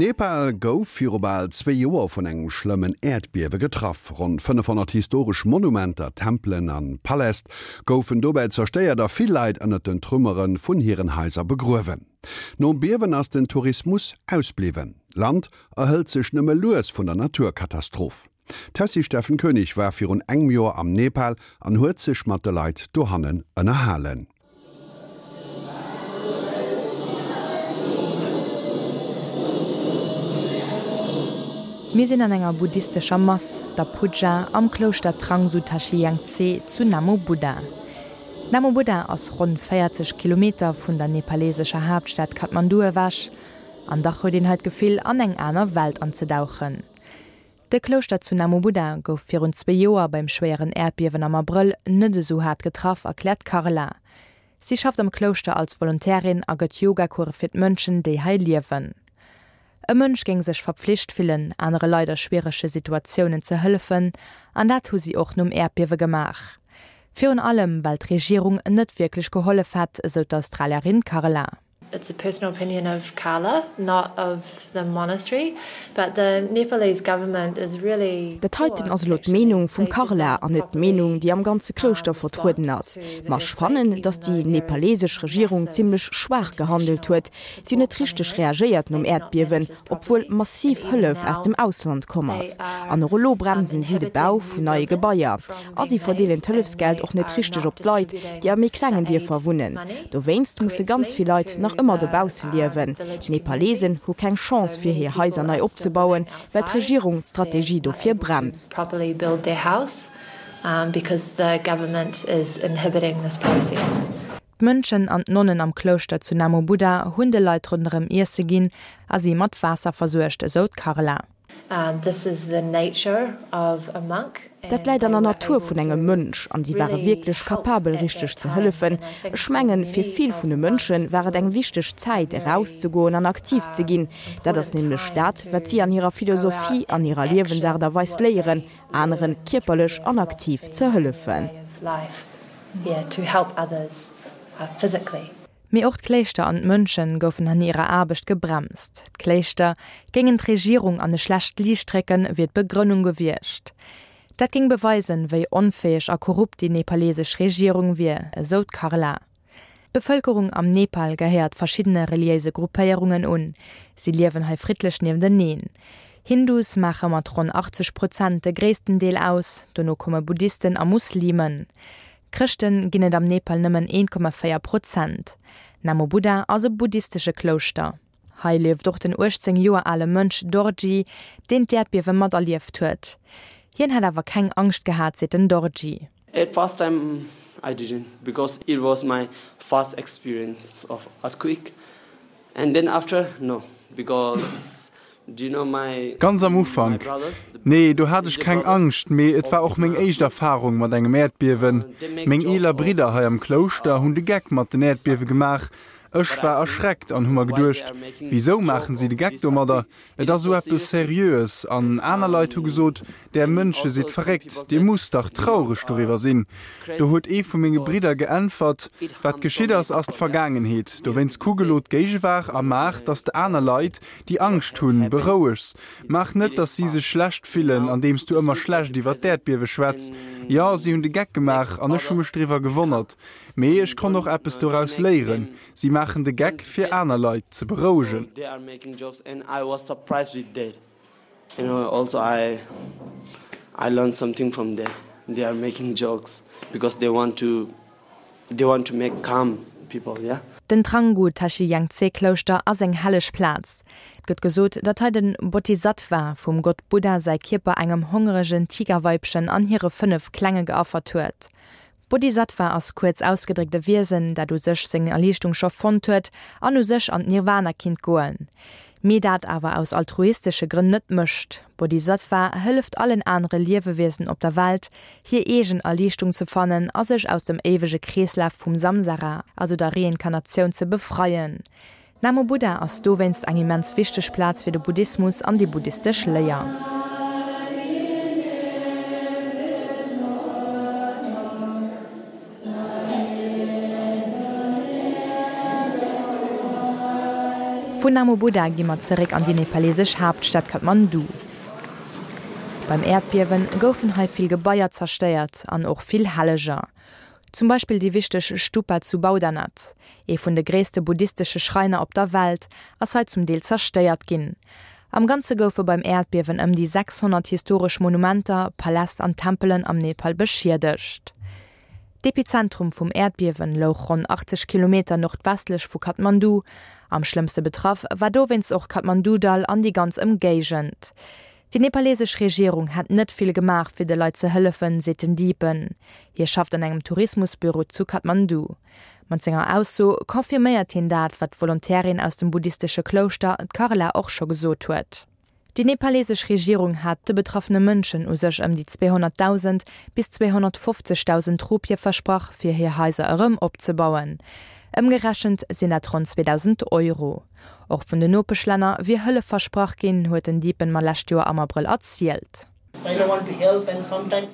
Nepal gouf viru bal zwee Joer vun engem schlëmmen Äerdbiewe getraff. Ronn 500 historesch Monumenter, Tempelen an Paläst goufen dobäi zerstéiert a vill Leit ënnert den Trümmere vun hiren Haiser begruewen. Nom Biewen ass den Tourismus ausbliwwen. D'Land erhëlt sech nëmme lues vun der Naturkatastroph. D'Tessy Steffen Koenig war virun engem Joer am Nepal an huet sech mat de Leit dohannen ënnerhalen. Mir sinn an enger buddhistescher Mass, der Puja, am Klouschter Trangsu Tashi Yangtse zu Namo Buddha. Namo Buddha ass ronn 40 Kilometer vun der nepalesescher Haaptstad Kathmandu ewech, an dach huet een hei d'Gefill an eng aner Welt anzedauchen. De Klouschter zu Namo Buddha gouf virun zwee Joer beim schwéieren Äerdbiewen am Abrëll net esou haart getraff, erkläert d'Carla. Si schafft am Klouschter als Volontärin a gëtt Yogacourse fir d'Mënschen, déi hei liewen. E Mönch géing sech verpflicht fillen, anere Leit a schwierege Situatiounen ze hëllefen, an dat hu si och nom Äerdbiewe gemaach. Virun allem, well d'Regierung net wierklech gehollef hätt, esou d'Australierin Carla. It's a personal opinion of Carla, not of the monastery, but the Nepalese government is really Dat heiten ass elo d'Meenung vum Carla an net d'Meenung, déi am ganze Klouschter vertrueden ass. Ma ech fannen, datt déi nepalesesch Regierung zimmlech schwaach gehandelt huet. Si hunn net richteg reagéiert nom Äerdbiewen, obwuel massiv Hëllef aus dem Ausland komm ass. An och elo bremsen si de Bau vun neie Gebaier. A si verdeelen d'Hëllefsgeld och net richteg op d'Leit, déi a méi klengen Dierfer wunnen. Dowéinst musse ganz vill Leit nach ëmmer dobausse liewen. D'Nepalesen hu keng Chance fir hir Haiser nei opzebauen, well d'Regierung d'Strategie dofir bremst. D'Mönchen an d'Nonnen am Klouschter zu Namo Buddha hunn de Leit ronderëm Iesse ginn a si mat Waasser versuergt, esou d'Carla. Dat läit an der Natur vun engem Mönch an si ware wierklech kapabel richteg ze hëllefen. Ech mengen, fir vill vun de Mönche war et eng wichteg Zäit erauszegoen an aktiv ze ginn. Dat ass nämlech dat, wat si an hirer Philosophie an hirer Liewensaart a Weis léieren, anere kierperlech an aktiv ze hëllefen. Mee och d'Kléischter an d'Mönchen goufen an hirer Aarbecht gebremst. D'Kléischter géingen d'Regierung an e schlecht Liicht drécken, wier d'Begrënnung gewiescht. Dat géing beweisen, wéi onfäeg a korrupt déi nepalesesch Regierung wier, esou d'Carla. D'Bevëlkerung am Nepal gehéiert verschiddene reliéise Gruppéierungen un. Si liewen hei friddlech niefteneen. Hindus maache mat ronn 80 Prozent de gréissten Deel aus, dono komme Buddhisten a Muslimen. Chrëschten ginn et am Nepal nëmmen 1,4 Prozent. Namo Buddha ass e buddhistesche Klouschter. Hei lieft och den 18 Joer ale Mönch Dorji, deen d'Äerdbiewe materlieft huet. Hien hätt awer keng Angscht gehat, seet den Dorji. At first time I didn't because it was my first experience of earthquake and then after no because Ganz am Ufank, nee, do hat ech keng Angscht, mee et war och meng éischt Erfarung mat engem Äerdbiewen. Meng eeler Bridder hei am Klouschter hunn de Geck mat den Äerdbiewe gemaach. Ech war erschreckt an hu mer geduecht, Wisou maachen si de Geck domadder? Et ass esou eppes Seriöes. An aner Leit hu gesot, Där Mënsche sidd verréckt, dir musst dach traureg doriwwer sinn. Do huet ee vu menge Bridder geäntwert, Wat geschitt ass, ass d'Vergaangenheet. Dowéinst kuck elo d'Géigewaart a maach, datt s de aner Leit, déi Angscht hunn, berouegs. Maach net, datt si sech schlecht fillen, andeems du ëmmer schlecht iwwer d'Äerdbiewe schwätz. Jo, si hunn de Geck gemaach an ech hu mech driwwer gewonnert. Mee ech konnt och eppes doraus léieren, Si maachen de Geck, fir aner Leit ze berouegen. Den Thrangu Tashi Yangtse Klouschter ass eng helleg Plaz. Et gëtt gesot, datt hei den Bodhisattva vum Gott Buddha säi Kierper engem hongeregen Tigerweibchen an hire 5 Klenge geaffert huet. Bodhisattva ass kuerz ausgedréckt e Wiesen, dat u sech seng Erliichtung scho fonnt huet an u sech an d'Nirvana kinnt goen, mee dat awer aus altruistesche Grënn net mécht. Bodhisattva hëlleft allen anere Liewewiesen op der Welt, hir eegen Erliichtung ze fannen a sech aus dem éiwege Kreeslaf vum Samsara, also der Reinkarnatioun, ze befreien. Namo Buddha ass dowéinst eng immens wichteg Plaz fir de Buddhismus an déi buddhistesch Léier. Vun Namo Buddha gi mer zeréck an déi nepalesesch Haaptstad Kathmandu. Beim Äerdbiewen goufen hei vill Gebaier zerstéiert an och vill Helleger. Zum Beispill déi wichteg Stupa zu Boudhanath, ee vun de gréisste buddhistesche Schräiner op der Welt, ass hei zum Deel zerstéiert ginn. Am Ganze goufe beim Äerdbiewen ëm déi 600 historesch Monumenter, Paläst an Tempelen am Nepal beschiedegt. D'Epizentrum vum Äerdbiewen louch ronn 80 Kilometer nordwestlech vu Kathmandu. Am schlëmmste betraff war dowéinst och d'Kathmandu-Dall an déi ganz Ëmgéigend. Déi nepalesesch Regierung hätt net vill gemaach, fir de Leit ze hëllefen, seet den Dipen. Hie schafft an engem Tourismusbüro zu Kathmandu. Mat senger Ausso confirméiert hien dat, wat d'Volontairin aus dem buddhistesche Klouschter, d'Karla, och scho gesot huet. Déi nepalesesch Regierung hat de betraffene Mënschen u sech ëm déi 200.000 bis 250.000 Rupie versprach, fir hir Haiser erëm opzebauen. Ëmgerechent sinn dat ronn 2.000 Euro. Och vun den Nopeschlänner wier Hëllef versprach ginn, huet den Dipen mer lescht Joer am Abrëll erzielt.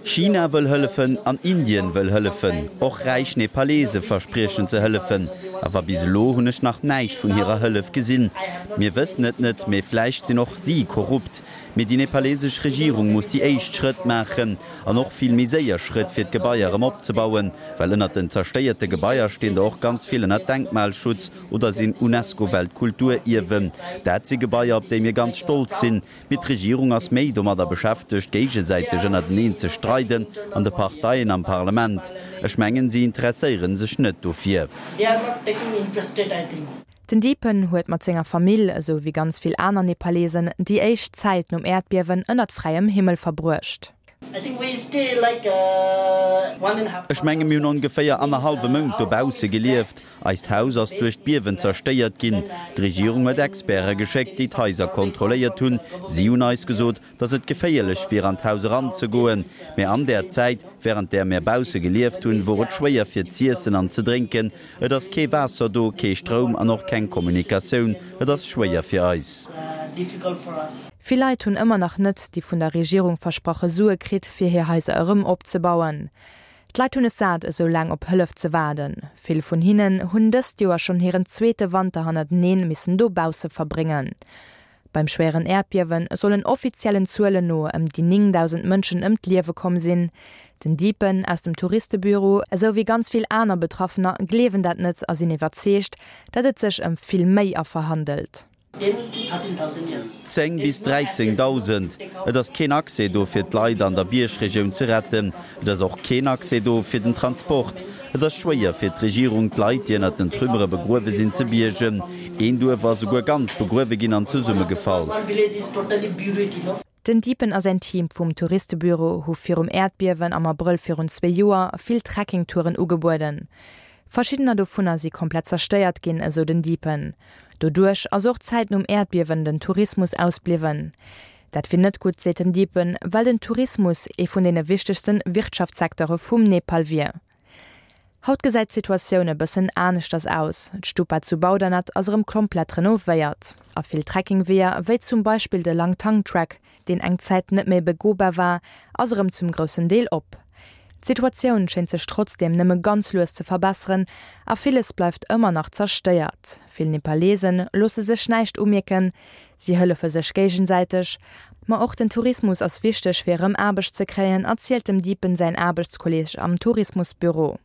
China wëll hëllefen an Indien wëll hëllefen. Och räich Nepalese verspriechen ze hëllefen. Awer bis elo hunn ech nach näischt vun hirer Hëllef gesinn. Mir wëssen et net, mee vläicht sinn och si korrupt. Mee déi nepalesesch Regierung muss déi éischt Schrëtt maachen an och vill méi séier Schrëtt fir d'Gebaier erëm opzebauen, well ënnert den zerstéierte Gebaier stinn der och ganz vill ënner Denkmalschutz oder sinn UNESCO-Weltkulturierwen. Dat si Gebaier, op déi mir ganz stolz sinn. Mee d'Regierung ass méi domadder beschäftegt, géigesäiteg ënnerteneen ze streiden an de Parteien am Parlament. Ech mengen, si interesséiere sech net dofir. Den Dipen huet mat senger Famill, esou wéi ganz vill aner Nepalesen, déi éischt Zäit nom Äerdbiewen ënnert fräiem Himmel verbruecht. Ech menge mir hunn ongeféier annerhallwe Mount dobausse gelieft. Eist Haus ass duerch d'Biewen zerstéiert ginn. D'Regierung huet Experte geschéckt, déi d'Haiser kontrolléiert hunn. Si hunn eis gesot, datt et geféierlech wier an d'Haus eranzegoen. Mä an där Zäit, wärend där mir bausse gelieft hunn, wor et schwéier fir z'iessen an ze drénken. Et ass kee Waasser do, kee Stroum an och keng Kommunikatioun. Et ass schwéier fir eis. Vill Leit hunn ëmmer nach net déi vun der Regierung versprache Sue kritt, fir hir Haiser erëm opzebauen. D'Leit hunn es sat, esou laang op Hëllef ze waarden. Vill vun hinnen hunn dëst Joer schonn hiren zweete Wanter hannerteneen missen dobausse verbréngen. Beim schwéieren Äerdbiewe sollen offiziellen Zuelen no ëm déi 9.000 Mënschen ëm d'Liewe komm sinn. Den Dipen aus dem Touristebüro, esou wéi ganz vill aner Betraffener, gleewen dat net a sinn iwwerzeegt, datt et sech ëm vill méi Affer handelt. 10 bis 13.000. Et ass keen Accès do fir d'Leit an der Biergregioun ze retten. Et ass och keen Accès do fir den Transport. Et ass schwéier fir d'Regierung, d'Leit, déi ënnert den Trümmere begruewe sinn, ze biergen. Een Duerf ass esouguer ganz begruewe ginn an zesummegefall. Den Dipen a säin Team vum Touristebüro hu virum Äerdbiewen am Abrëll virun zwee Joer vill Trekkingtouren ugebueden. Verschiddener dovunner si komplett zerstéiert ginn, esou den Dipen. Doduerch ass och d'Zäit nom Äerdbiewen den Tourismus ausbliwwen. Dat wier net gutt, seet den Dipen, well den Tourismus ee vun deene wichtegste Wirtschaftssecteure vum Nepal wier. Haut gesäit d'Situatioun e bëssen aneschters aus. D'Stupa zu Boudhanath ass erëm komplett renovéiert. A vill Trekkingweeër, wéi zum Beispill de Langtang Track, deen eng Zäit net méi begobar war, ass erëm zum groussen Deel op. D'Situatioun schéint sech trotzdeem nëmme ganz lues ze verbesseren a villes bleift ëmmer nach zerstéiert. Vill Nepalesen loosse sech näischt umierken, si hëllefe sech géigesäiteg. Ma och den Tourismus ass wichteg fir erëm Aarbecht ze kréien, erzielt dem Dipen säin Aarbechtskolleeg am Tourismusbüro.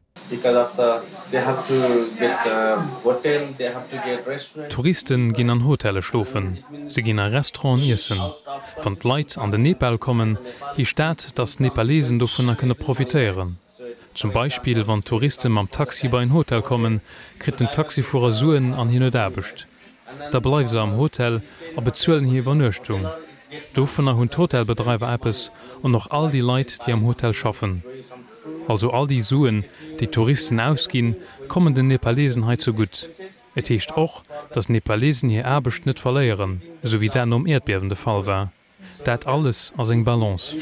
Touristen ginn an Hotelle schlofen, se ginn a Restauranten iessen. Wann d'Leit an den Nepal kommen, heescht dat, datt d'Nepalesen dovunner kënne profitéieren. Zum Beispill wann d'Touriste mam Taxi bei en Hotel kommen, kritt den Taxifuerer Suen an hien huet Aarbecht. Da bleiwe se am Hotel a bezuelen hir Iwwernuechtung. Dovunner hunn d'Hotelbedreiwer eppes an och all déi Leit, déi am Hotel schaffen. Also all déi Suen, déi d'Touristen ausginn, kommen den Nepalesen hei zegutt. Et heescht och, datt d'Nepalesen hir Aarbecht net verléieren, esou wéi dat nom Äerdbiewen de Fall war. Dat alles ass eng Balance.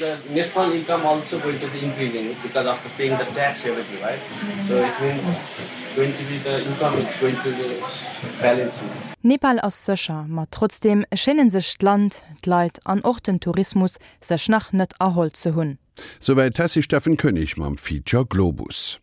Nepal ass sécher, ma trotzdeem schéinen sech d'Land, d'Leit an och den Tourismus sech nach net erholl ze hunn. Souwäit d'Tessy Steffen Koenig mam Feature Globus.